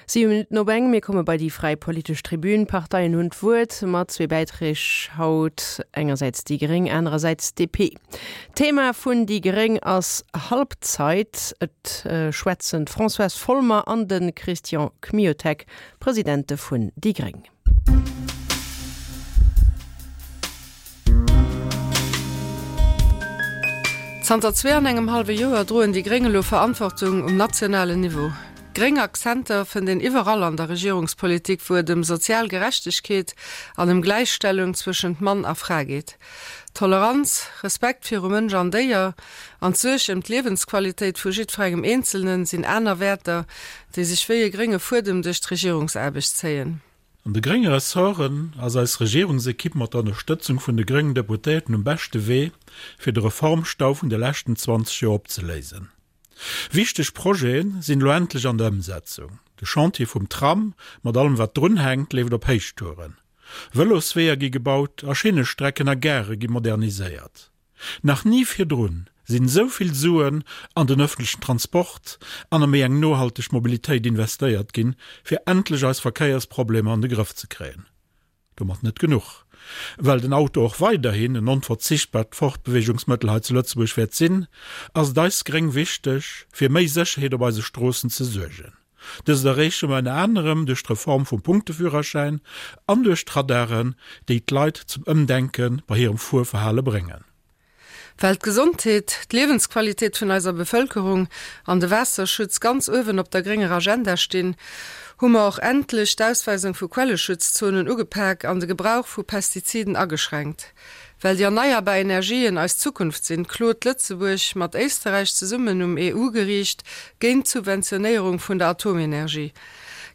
7 Minutten op eng, mir komme bei déi fräi politesch Tribün. D'Parteien hunn d'Wuert mat zwee Bäiträg haut, engersäits déi gréng, anerersäits d'DP. D'Thema vun déi gréng ass Halbzeit. Et schwätzen d'Françoise Folmer an de Christian Kmiotek, Presidente vun déi gréng. Zanter zwee an engem hallwe Joer droen déi gréng elo Verantwortung um nationalen Niveau. Gréng Akzenter fënnt een iwwerall an der Regierungspolitik, wou et ëm sozial Gerechtegkeet an ëm Gläichstellung zwëschent Mann a Fra geet. Toleranz, Respekt viru Mënsch an Déier an d'Suerg ëm d'Liewensqualitéit vu jiddwerengem Eenzelnen sinn aner Wäerter, déi sech wéi e grénge Fuedem duerch d'Regierungsaarbecht zéien. An de grénge Ressorten ass eis Regierungsekipp mat der Ënnerstëtzung vun de gréngen Deputéierten um beschte Wee, fir de Reformstau vun de leschten 20 Joer opzeléisen. Wichteg Projete sinn elo endlech an der Ëmsetzung. De Chantier vum Tram, mat allem wat drunhänkt, leeft op Héichtouren. Vëlosweeër gi gebaut a Schinnestrecken a Gare gi moderniséiert. Nach ni virdrun sinn esou vill Suen an den ëffentlechen Transport an a méi eng nohalteg Mobilitéit investéiert ginn, fir endlech eis Verkéiersproblemer an de Grëff ze kréien. Domat net genuch. Well den Auto och weiderhin en onverzichtbart Fortbeweegungsmëttel hei zu Lëtzebuerg wäert sinn, ass et eis Gréng wichteg, fir méi Sécherheet op eise Stroossen ze suergen. Dëst erreeche mer ënner anerem duerch d'Reform vum Punkteführerschäin an duerch d'Radaren, déi d'Leit zum Ëmdenke bei hirem Fuerverhale bréngen. Well d'Gesondheet, d'Liewensqualitéit vun eiser Bevëlkerung an de Waasserschutz ganz uewen op der grénger Agenda stinn, hu mer och endlech d'Ausweisung vu Quelleschutzzonen ugepak an de Gebrauch vu Pestiziden ageschränkt. Well déi erneierbar Energien eis Zukunft sinn, klot Lëtzebuerg mat Éisterräich zesummen um EU-Geriicht géint d'Subventionéierung vun der Atomenergie.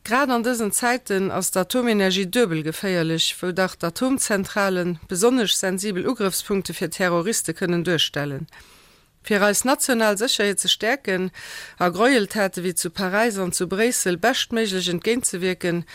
Grad an dësen Zäiten ass d'Atomenergie duebel geféierlech, wou dach d'Atomzentrale besonnesch sensibel Ugrëffspunkte fir Terroriste kënnen duerstellen. Fir eis national Sécherheet ze stäerken a Gräueltate wéi zu Paräis an zu Bréissel beschtméiglech entgéintzewierken,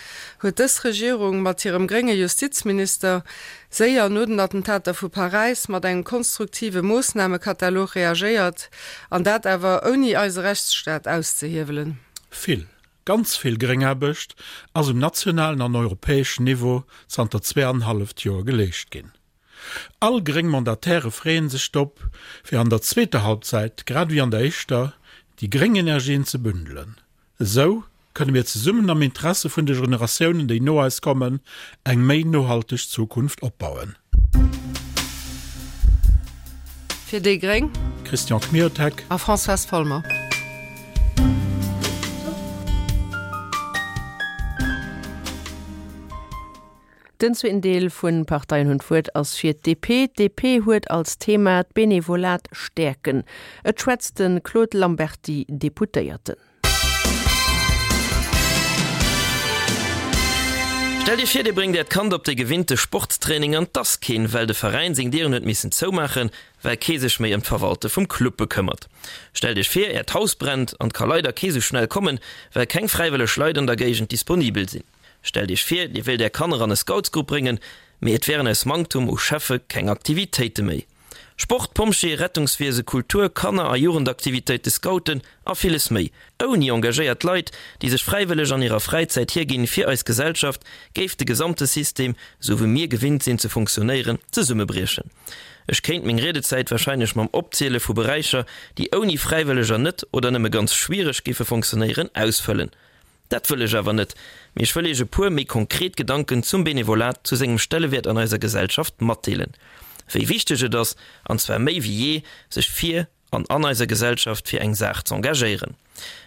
huet dës Regierung mat hirem grénge Justizminister séier no den Attentater vu Paräis mat engem konstruktive Moossnamekatalog reagéiert, an dat awer ouni eise Rechtsstaat auszehiewelen. Vill, ganz vill Gréngaarbecht ass um nationalen an europäeschen Niveau zanter zweeanenhalleft Joer geleescht ginn. All gréng Mandataire freeën sech drop, fir an der zweeter Halbzeit, grad ewéi an der éischter, déi gréng Energien ze bündelen. Esou kënne mir zesummen am Interesse vun de Generatiounen, déi no eis kommen, eng méi nohalteg Zukunft opbauen. Fir déi gréng. Christian Kmiotek. A Françoise Folmer. Den zweeten Deel vun Parteien hunn d'Wuert ass fir d'DP. D'DP huet als Thema d'Benevolat stäerken. Et schwätzt de Claude Lamberty, Deputéierten. Stellt Iech vir, Dir bréngt Äert Kand op de gewinnte Sportstraining an 't ass keen, well de Veräin seng Dieren huet missen zoumaachen, well kee sech méi ëm d'Verwalte vum Club bekëmmert. Stellt Iech vir, Äert Haus brennt an 't ka leider kee sou schnell kommen, well keng fräiwëlleg Leit an der Géigend disponibel sinn. Stellt Iech vir, Dir wéilt Är Kanner an e Scoutsgrupp bréngen, mee et wären aus Manktum u Cheffe keng Aktivitéite méi. Sport, Pompjee, Rettungswiese, Kultur, Kanner a Jugendaktivitéite, Scouten a villes méi. Ouni engagéiert Leit, déi sech fräiwëlleg an hirer Fräizäit hierginn fir eis Gesellschaft, géif de gesamte System, esou wéi mir gewinnt sinn ze funktionéieren, zesummebriechen. Ech kéint meng Riedezäit warscheinlech mam Opziele vu Beräicher, déi ouni Fräiwëlleger net oder nëmme ganz schwiereg géife funktionéieren, ausfëllen. Dat wëll ech awer net, mee ech wëll Iech e puer méi konkret Gedanken zum Benevolat, zu sengem Stellewäert an eiser Gesellschaft matdeelen. Wéi wichteg et ass, an zwar méi wéi jee, sech fir an an eiser Gesellschaft fir eng Saach z'engagéieren.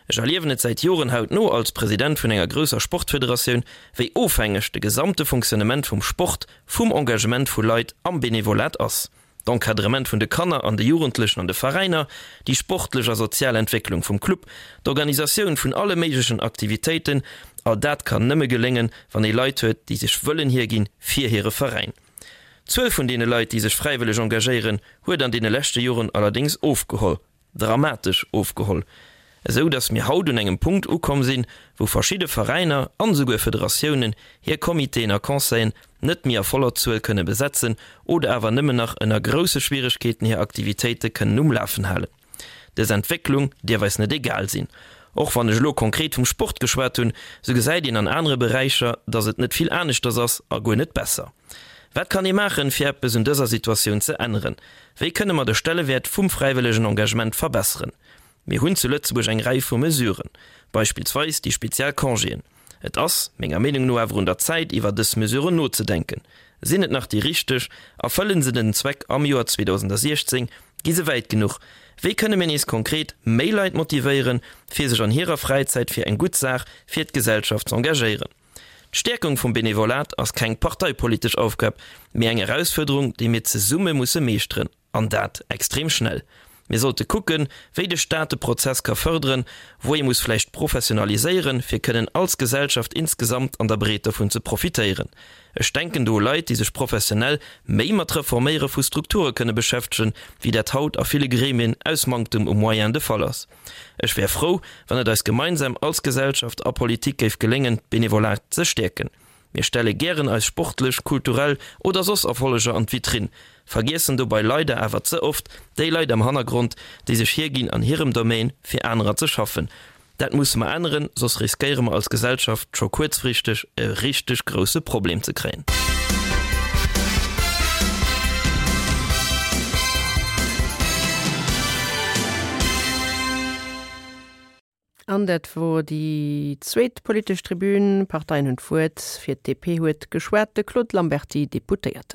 Ech erliewen et säit Joren hautno als President vun enger grousser Sportfederatioun, wéi ofhängeg de gesamte Fonctionnement vum Sport vum Engagement vu Leit am Benevolat ass. D'Encadrement vun de Kanner an de Jugendlechen an de Veräiner, déi sportlech a sozial Entwécklung vum Club, d'Organisatioun vun alle méiglechen Aktivitéiten, all dat kann nëmme geléngen, wann ee Leit huet, déi sech wëllen hierginn fir hire Veräin. D'Zuel vun deene Leit, déi sech fräiwëlleg engagéieren, huet an deene leschte Joren allerdéngs ofgeholl. dramatesch ofgeholl, esou datt mir haut un engem Punkt ukomm sinn, wou verschidde Veräiner an esouguer Federatiounen hir Comitéen a Conseillen net méi a voller Zuel kënne besetzen oder awer nëmmen nach ënner grousse Schwieregkeeten hir Aktivitéite kënnen um Lafen halen. Dës Entwécklung dierf eis net egal sinn. Och wann ech elo konkret vum Sport geschwat hunn, sou gesäit een an anere Beräicher, dass et net vill aneschters ass a guer net besser. Wat kann ee maachen, fir eppes un dëser Situatioun ze änneren? Wéi kënne mer de Stellewäert vum fräiwëllegen Engagement verbesseren? Mir hunn zu Lëtzebuerg eng Rei vu Mesuren, beispillsweis déi spezial Congéen. Et ass, menger Meenung no, awer un der Zäit, iwwer dës Mesuren nozedenken. Sinn et nach déi richteg? Erfëllen se den Zweck am Joer 2016? Gi se wäit genuch? Wéi kënne mir nees konkret méi Leit motivéieren, fir sech an hirer Fräizäit fir eng gutt Saach, fir d'Gesellschaft z'engagéieren? D'Stäerkung vum Benevolat ass keng parteipolitesch Aufgab, mee eng Erausfuerderung, déi mir zesumme musse meeschteren. An dat extrem schnell. Mir sollte kucken, wéi de Staat de Prozess ka fërderen, wou ee muss vläicht professionaliséieren, fir kënnen als Gesellschaft insgesamt an der Breet dervun ze profitéieren. Ech denken do u Leit, déi sech professionell méi mat Reforméiere vu Strukture kënne beschäftegen, wéi dat haut a ville Gremien aus Manktem u Moyens de Fall ass. Ech wär frou, wann et eis gemeinsam als Gesellschaft a Politik géif geléngen, d'Benevolat ze stäerken. Mir stelle gären eis sportlech, kulturell oder soss Erfolleger an d'Vitrinn, vergiessen dobei leider awer ze oft déi Leit am Hannergrond, déi sech hierginn an hirem Domaine fir anerer ze schaffen. Dat musse mer änneren, soss riskéiere mer als Gesellschaft scho kuerzfristeg e richteg grousse Problem ze kréien. An dat wor déi zweet politesch Tribün. D'Parteien hunn d'Wuert. Fir d'DP huet geschwat de Claude Lamberty, Deputéierten.